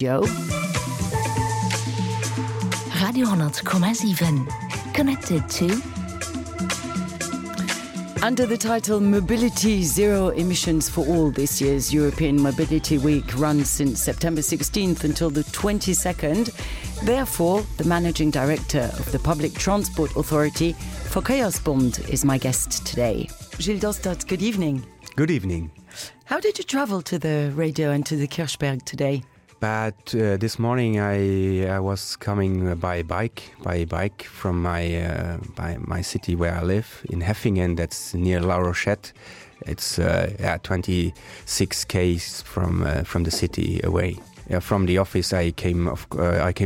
Joe. Radio 100,7. Connected to... Under the title Mobility Zero Emissions for All, this year's European Mobility Week runs since September 16th until the 22nd. Therefore, the Managing Director of the Public Transport Authority, Verkehrsbund, is my guest today. Gilles Dostert, good evening. Good evening. How did you travel to the radio and to the Kirchberg today? But this morning I was coming by bike from my city where I live in Heffingen. That's near La Rochette. It's 26 km from the city away. From the office I came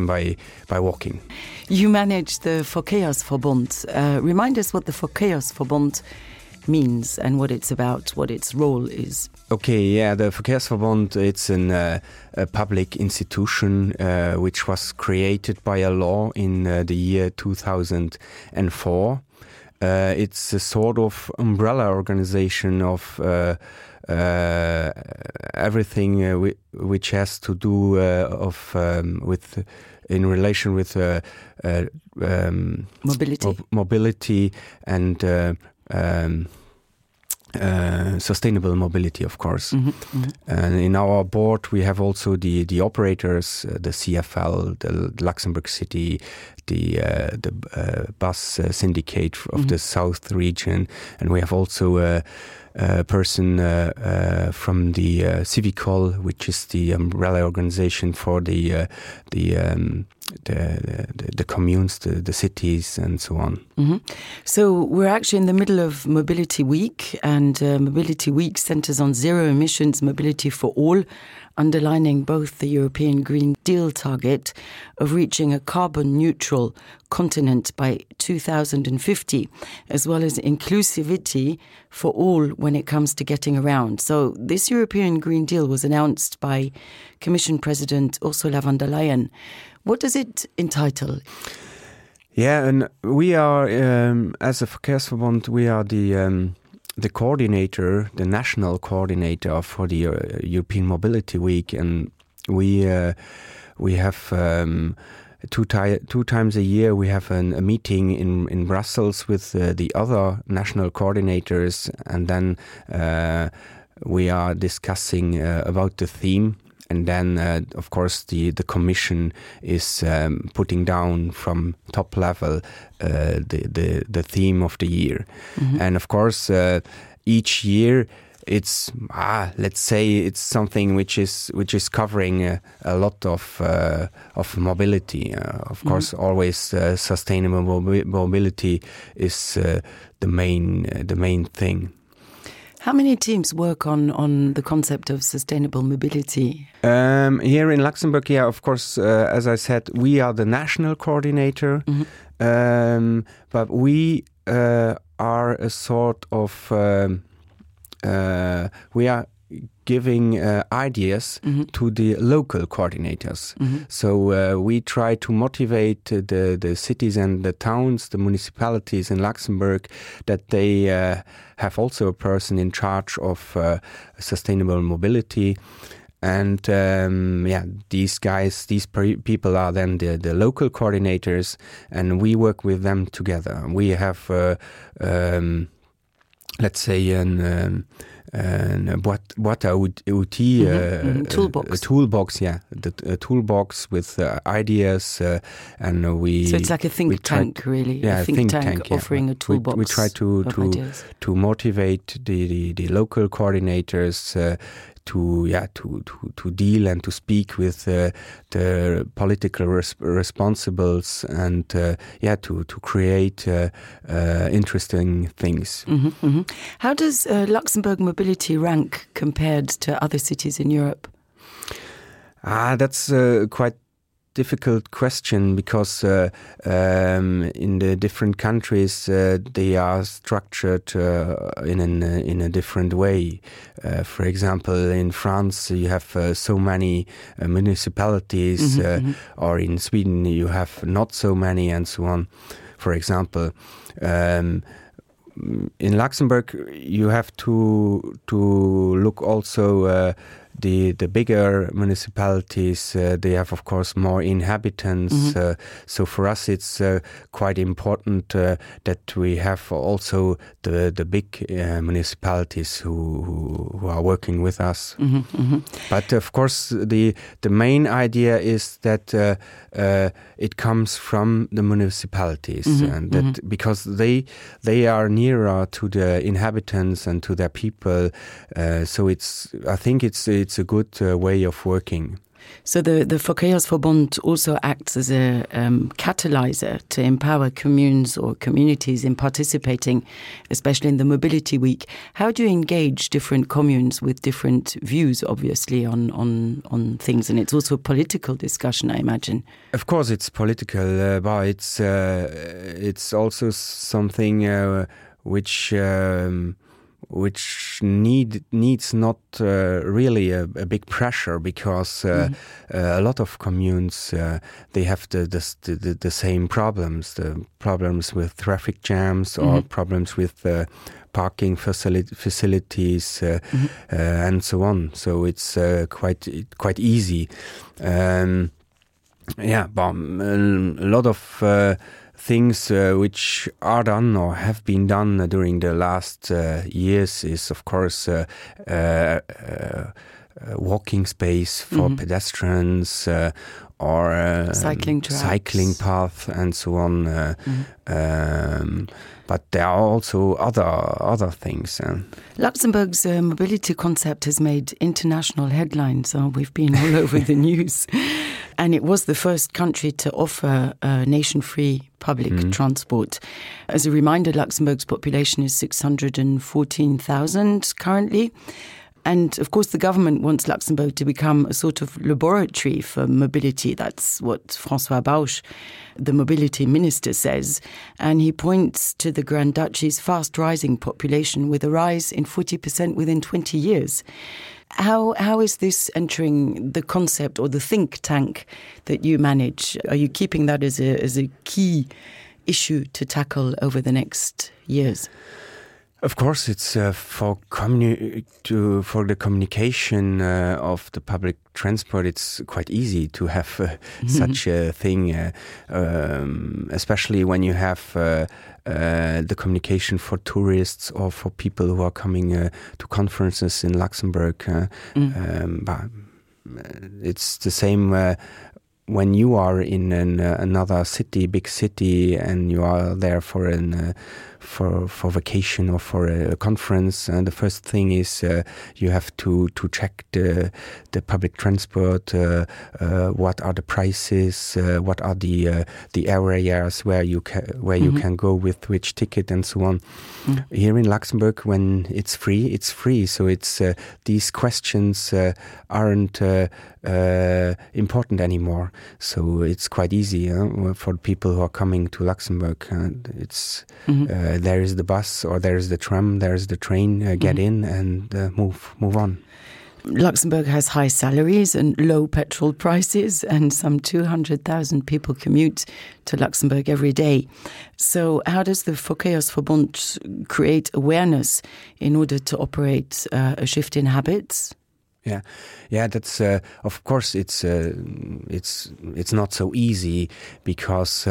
by walking. You manage the Verkehrsverbund. Remind us what the Verkehrsverbund means and what it's about, what its role is. Okay, the Verkehrsverbund, it's a public institution which was created by a law in the year 2004. It's a sort of umbrella organization of everything which has to do in relation with mobility and sustainable mobility, of course. And in our board we have also the operators, the CFL, the Luxembourg City, the bus syndicate of the South region, and we have also a person from the Civicol, which is the umbrella organization for the communes, the cities, and so on. So we're actually in the middle of Mobility Week, and Mobility Week centres on zero emissions mobility for all, underlining both the European Green Deal target of reaching a carbon-neutral continent by 2050, as well as inclusivity for all when it comes to getting around. So this European Green Deal was announced by Commission President Ursula von der Leyen. What does it entitle? Yeah, and we are, as a Verkehrsverbund, we are the coordinator, the national coordinator for the European Mobility Week, and we have two times a year we have a meeting in Brussels with the other national coordinators, and then we are discussing about the theme. And then, of course, the Commission is putting down from top level the theme of the year. And of course, each year it's let's say it's something which is covering a lot of mobility. Of course, always sustainable mobility is the main thing. How many teams work on the concept of sustainable mobility? Here in Luxembourg, of course, as I said, we are the national coordinator, but we are a sort of, we are giving ideas to the local coordinators. So we try to motivate the cities and the towns, the municipalities in Luxembourg, that they have also a person in charge of sustainable mobility. And these guys, these people are then the local coordinators, and we work with them together. We have, let's say, boîte à outils, toolbox. A toolbox, a toolbox with ideas, and we. So it's like a think tank, really. Yeah, a think tank offering a toolbox. We try to motivate the local coordinators. To deal and to speak with the political responsibles and to create interesting things. How does Luxembourg mobility rank compared to other cities in Europe? That's quite difficult question, because in the different countries they are structured in a different way. For example, in France you have so many municipalities, or in Sweden you have not so many, and so on. For example, in Luxembourg you have to look also the bigger municipalities, they have, of course, more inhabitants. So for us, it's quite important that we have also the big municipalities who are working with us. But of course, the main idea is that it comes from the municipalities, and that because they are nearer to the inhabitants and to their people. So I think it's a good way of working. So the Verkehrsverbund also acts as a catalyzer to empower communes or communities in participating, especially in the Mobility Week. How do you engage different communes with different views, obviously, on things? And it's also a political discussion, I imagine. Of course, it's political, but it's also something which needs not really a big pressure, because a lot of communes they have the same problems, the problems with traffic jams or problems with parking facilities and so on. So it's quite easy. But a lot of things which are done or have been done during the last years is, of course, walking space for pedestrians or cycling path and so on. But there are also other things. Luxembourg's mobility concept has made international headlines. We've been all over the news. And it was the first country to offer nation-free public transport. As a reminder, Luxembourg's population is 614,000 currently. And of course, the government wants Luxembourg to become a sort of laboratory for mobility. That's what François Bausch, the mobility minister, says. And he points to the Grand Duchy's fast rising population, with a rise in 40% within 20 years. How is this entering the concept or the think tank that you manage? Are you keeping that as a key issue to tackle over the next years? Of course, it's for the communication of the public transport. It's quite easy to have such a thing, especially when you have the communication for tourists or for people who are coming to conferences in Luxembourg. But it's the same when you are in another city, big city, and you are there for vacation or for a conference, and the first thing is you have to check the public transport, what are the prices, what are the areas where you can go with which ticket and so on. Here in Luxembourg, when it's free, so it's these questions aren't important anymore, so it's quite easy for people who are coming to Luxembourg. It's there is the bus or there is the tram, there is the train, get in and move on. Luxembourg has high salaries and low petrol prices, and some 200,000 people commute to Luxembourg every day. So how does the Verkehrsverbund create awareness in order to operate a shift in habits? Yeah. That's of course it's not so easy, because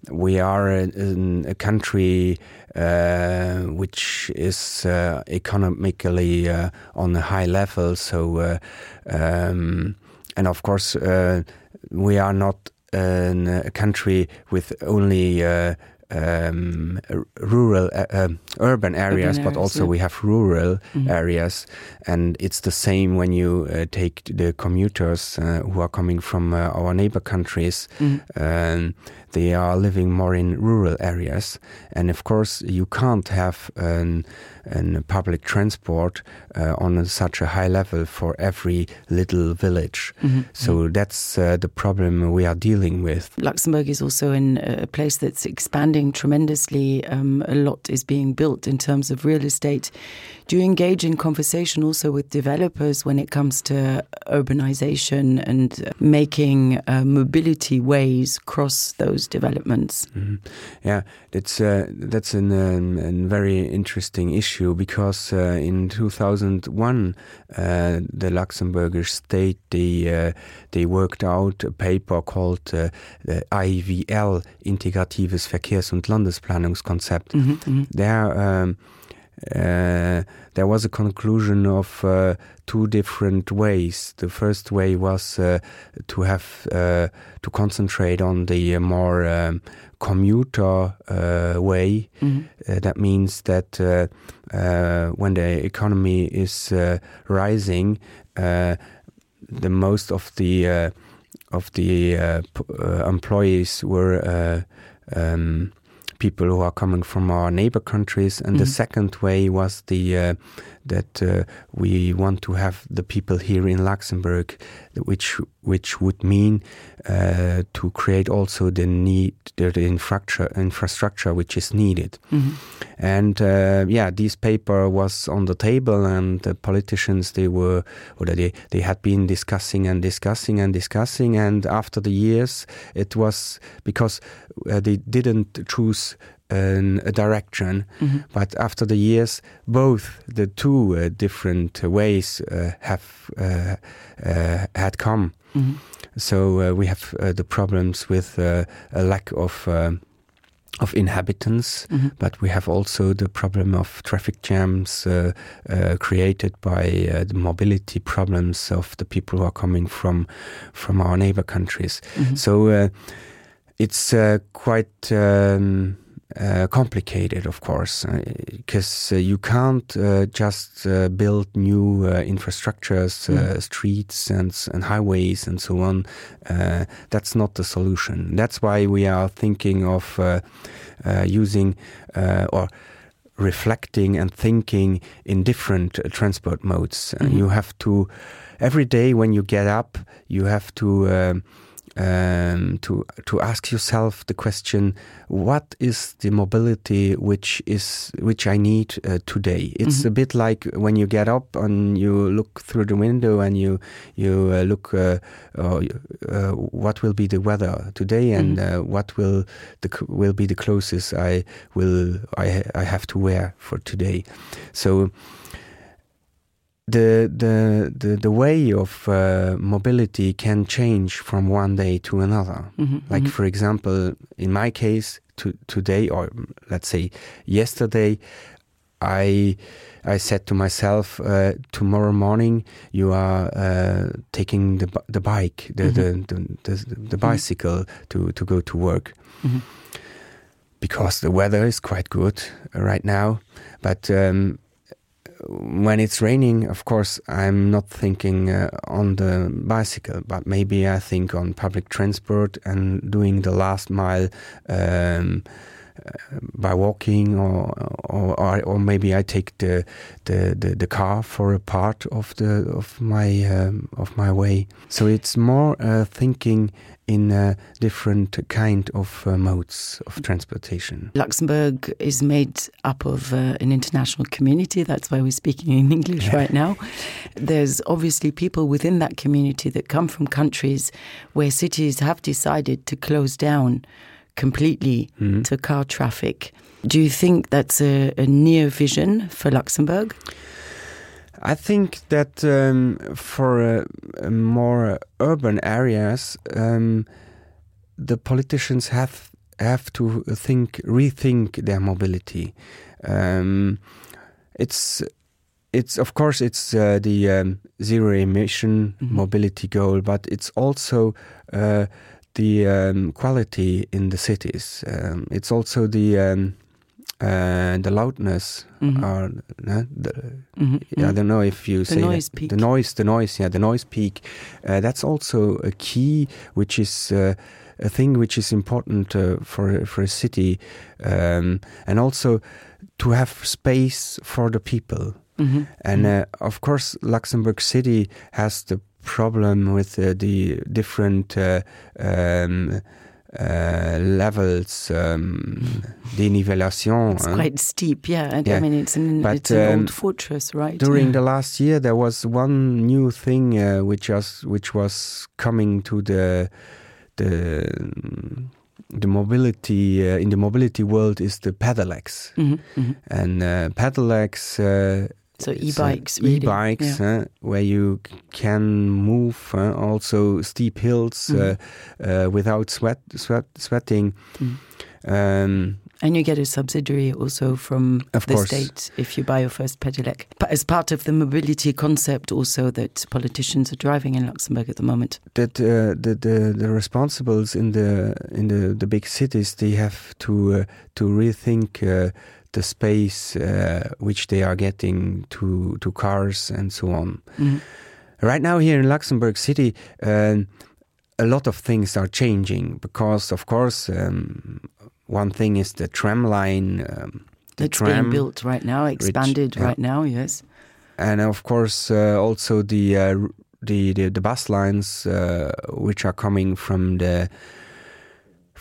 we are in a country which is economically on a high level. So and of course we are not a country with only urban areas, but also we have rural areas, and it's the same when you take the commuters who are coming from our neighbor countries. They are living more in rural areas, and of course you can't have a public transport on such a high level for every little village. So that's the problem we are dealing with. Luxembourg is also in a place that's expanding expanding tremendously. A lot is being built in terms of real estate. Do you engage in conversation also with developers when it comes to urbanization and making mobility ways cross those developments? Mm-hmm. Yeah, that's a very interesting issue because in 2001 the Luxembourgish state they worked out a paper called the IVL, Integratives Verkehrs- und Landesplanungskonzept. There was a conclusion of two different ways. The first way was to have to concentrate on the more commuter way. That means that when the economy is rising, the most of the employees were people who are coming from our neighbor countries, and the second way was that we want to have the people here in Luxembourg, which would mean to create also the infrastructure which is needed. And this paper was on the table, and the politicians they had been discussing, and after the years it was because they didn't choose a direction, but after the years both the two different ways had come. So we have the problems with a lack of inhabitants, but we have also the problem of traffic jams created by the mobility problems of the people who are coming from our neighbor countries. So it's quite complicated, of course, because you can't just build new infrastructures, streets and highways and so on. That's not the solution. That's why we are thinking of using or reflecting and thinking in different transport modes. You have to, every day when you get up, you have to ask yourself the question: what is the mobility which I need today? It's a bit like when you get up and you look through the window and you look what will be the weather today, and what will be the clothes I have to wear for today. So the way of mobility can change from one day to another. Like, for example, in my case, today, or let's say yesterday, I said to myself, tomorrow morning you are taking the bike, the bicycle to go to work, because the weather is quite good right now, but when it's raining, of course, I'm not thinking on the bicycle, but maybe I think on public transport and doing the last mile by walking, or maybe I take the car for a part of my way. So it's more thinking in different kind of modes of transportation. Luxembourg is made up of an international community. That's why we're speaking in English right now. There's obviously people within that community that come from countries where cities have decided to close down completely to car traffic. Do you think that's a near vision for Luxembourg? I think that for more urban areas, the politicians have to rethink their mobility. It's of course it's the zero emission mobility goal, but it's also the quality in the cities. It's also the loudness. I don't know if you say noise peak. The noise peak. That's also a key, which is a thing which is important for a city, and also to have space for the people. And of course, Luxembourg City has the problem with the different levels, denivellation. It's quite steep, yeah. I mean, it's an old fortress, right? During the last year, there was one new thing which was coming to the mobility in the mobility world is the pedelecs, and pedelecs. So e-bikes, really. E-bikes, where you can move also steep hills without sweating. And you get a subsidiary also from the state if you buy your first pedelec. But as part of the mobility concept also that politicians are driving in Luxembourg at the moment. That the responsibles in the big cities, they have to rethink the space which they are getting to cars and so on. Right now here in Luxembourg City, a lot of things are changing because, of course, one thing is the tram line. It's being built right now, expanded right now, yes. And of course, also the bus lines which are coming from the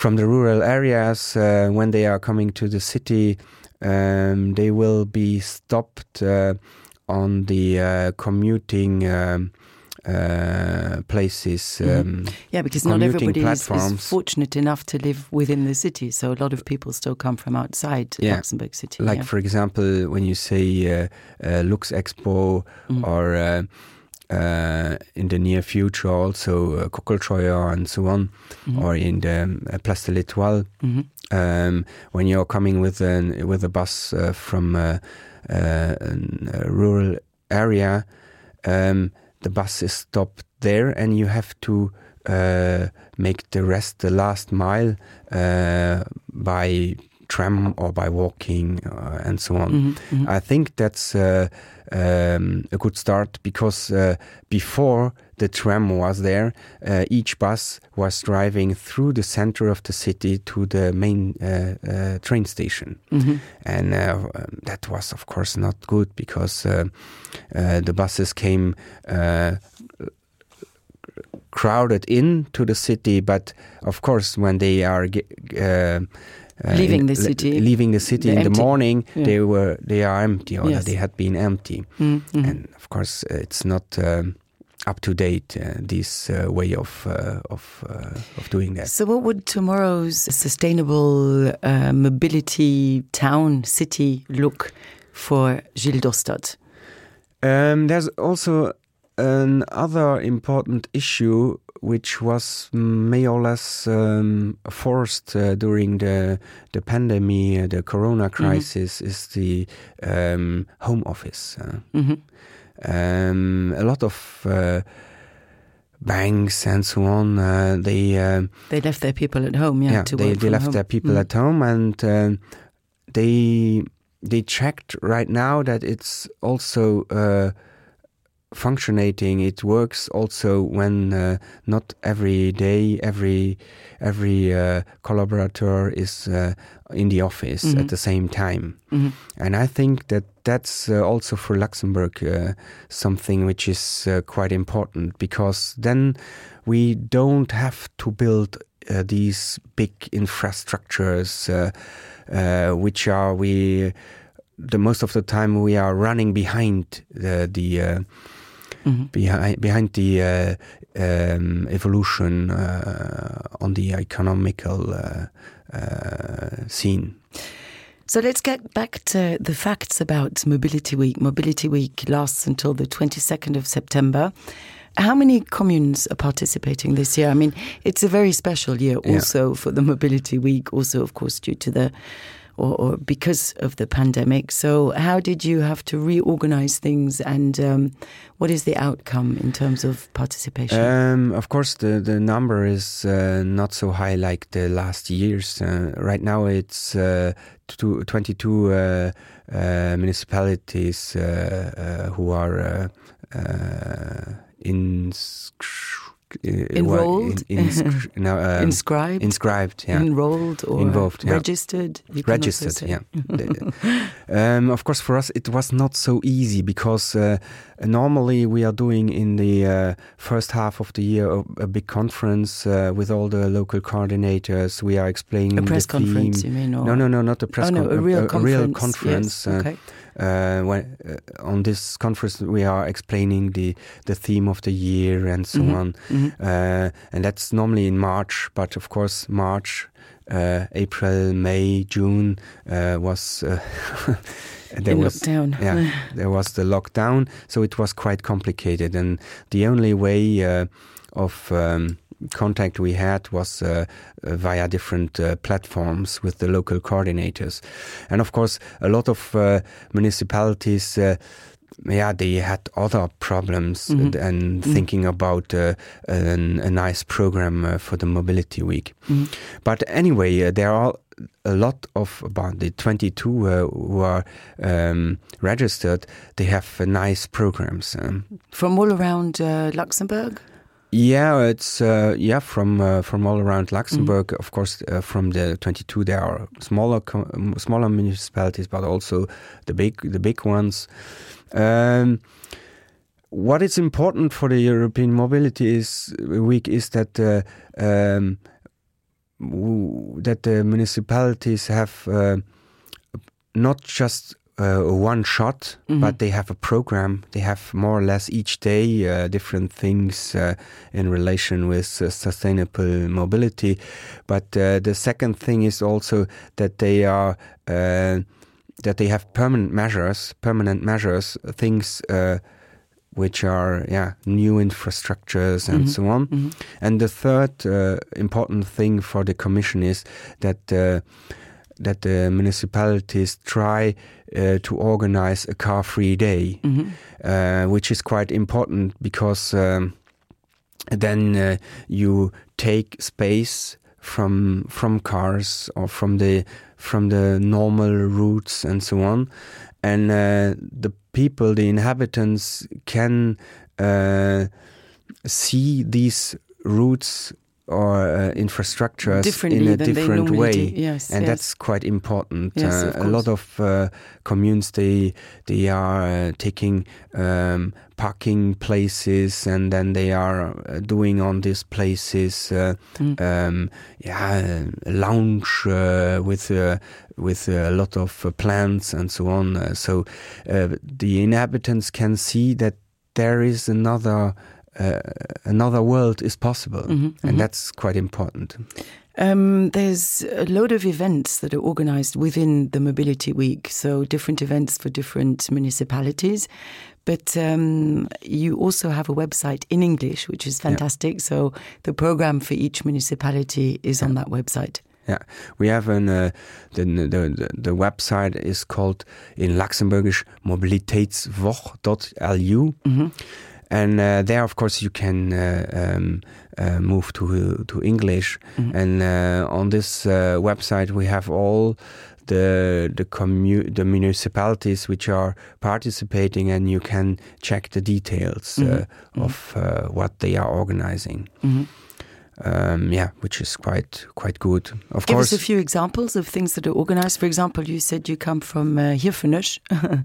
rural areas when they are coming to the city. They will be stopped on the commuting places. Because not everybody is fortunate enough to live within the city, so a lot of people still come from outside Luxembourg City. Like, for example, when you say Lux Expo or in the near future also Kokelscheuer and so on, or in the Place de l'Étoile. When you're coming with a bus from a rural area, the bus is stopped there, and you have to make the last mile by tram or by walking and so on. I think that's a good start because before the tram was there, each bus was driving through the center of the city to the main train station. And that was, of course, not good because the buses came crowded into the city, but of course when they are leaving the city in the morning, they are empty, or they had been empty. And of course it's not up to date, this way of doing that. So what would tomorrow's sustainable mobility town city look for Gilles Dorstad? There's also another important issue which was more or less forced during the pandemic, the corona crisis, is the home office. A lot of banks and so on, they left their people at home. They left their people at home, and they checked right now that it's also functioning. It works also when not every day every collaborator is in the office at the same time. And I think that's also for Luxembourg something which is quite important, because then we don't have to build these big infrastructures which are the most of the time we are running behind the evolution on the economical scene. So let's get back to the facts about Mobility Week. Mobility Week lasts until the 22nd of September. How many communes are participating this year? I mean, it's a very special year also for the Mobility Week, also, of course, due to the or because of the pandemic. So how did you have to reorganize things, and what is the outcome in terms of participation? Of course, the number is not so high like the last years. Right now it's 22 municipalities who are enrolled, inscribed, yeah, enrolled, or involved, yeah. registered. Registered, yeah. Of course, for us, it was not so easy because normally we are doing in the first half of the year a big conference with all the local coordinators. We are explaining a press the theme. Conference, you mean? Or? No, not a press conference. A real conference. Real conference. Yes, okay. On this conference, we are explaining the theme of the year and so on. And that's normally in March, but of course March, April, May, June was lockdown. Yeah, there was the lockdown, so it was quite complicated, and the only way of contact we had was via different platforms with the local coordinators. And of course, a lot of municipalities, they had other problems and thinking about a nice program for the Mobility Week. But anyway, there are a lot of about the 22 who are registered. They have nice programs. From all around Luxembourg? Yeah, it's from all around Luxembourg. Of course, from the 22, there are smaller municipalities, but also the big ones. What is important for the European Mobility Week is that that the municipalities have not just one shot, but they have a program. They have more or less each day different things in relation with sustainable mobility. But the second thing is also that they are that they have permanent measures, things which are new infrastructures and so on. And the third important thing for the Commission is that the municipalities try to organize a car-free day, which is quite important because then you take space from cars or from the normal routes and so on, and the people, the inhabitants, can see these routes or infrastructures in a different way. And that's quite important. Yes, a lot of communes, they are taking parking places, and then they are doing on these places a lounge with a lot of plants and so on. So the inhabitants can see that there is another world is possible, and that's quite important. There's a load of events that are organized within the Mobility Week, so different events for different municipalities. But you also have a website in English, which is fantastic. Yeah. So the program for each municipality is on that website. Yeah, we have the website is called in Luxembourgish mobilitätswoche.lu. And there, of course, you can move to English. And on this website, we have all the municipalities which are participating, and you can check the details of what they are organizing. Which is quite good. Of Give course, us a few examples of things that are organized. For example, you said you come from Hirfenusch.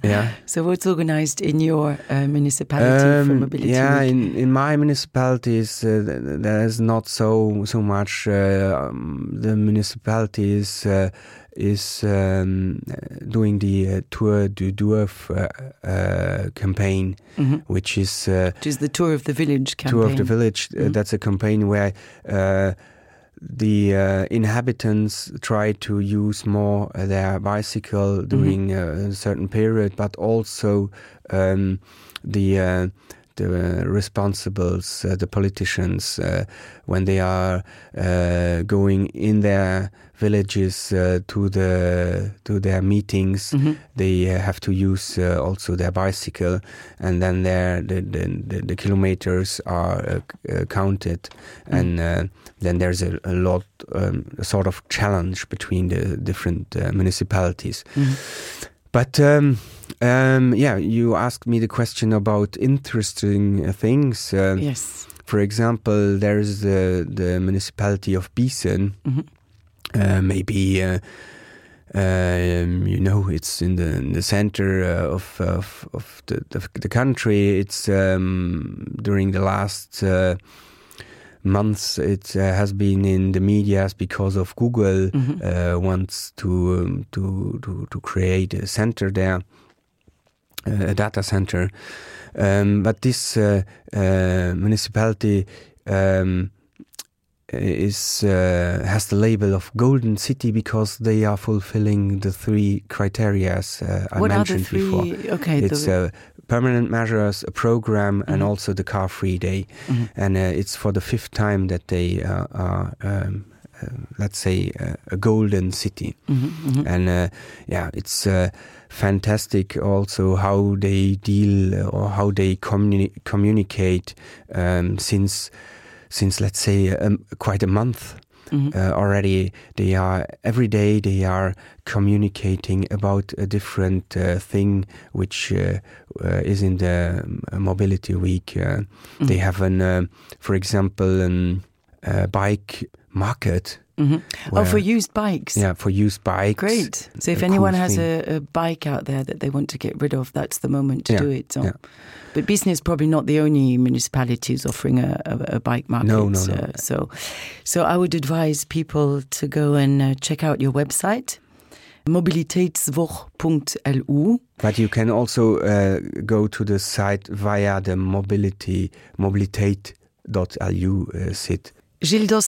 Yeah. So what's organized in your municipality for Mobility Week? In my municipalities, there is not so much. The municipality is doing the Tour du Dorf campaign, which is the Tour of the Village campaign. Tour of the Village. That's a campaign where the inhabitants try to use more their bicycle during a certain period, but also the responsibles, the politicians, when they are going in their villages to their meetings, they have to use also their bicycle, and then the kilometers are counted, and then there's a lot sort of challenge between the different municipalities. But you asked me the question about interesting things. Yes. For example, there is the municipality of Biesen. Maybe it's in the center of the country. It's during the last months it has been in the media because of Google wants to create a center there, a data center. But this municipality has the label of Golden City because they are fulfilling the 3 criteria I mentioned before. Okay, it's permanent measures, a program, and also the car-free day. And it's for the 5th time that they are, let's say, a golden city. And it's fantastic also how they deal or how they communicate since let's say quite a month already. They are every day they are communicating about a different thing which is in the mobility week. They have for example, a bike market. For used bikes. Yeah, for used bikes. Great. So if anyone has a bike out there that they want to get rid of, that's the moment to do it. So. Yeah. But Biesen is probably not the only municipalities offering a bike market. No. So I would advise people to go and check out your website, mobilitätswoche.lu. But you can also go to the site via the mobilität.lu site. Gildos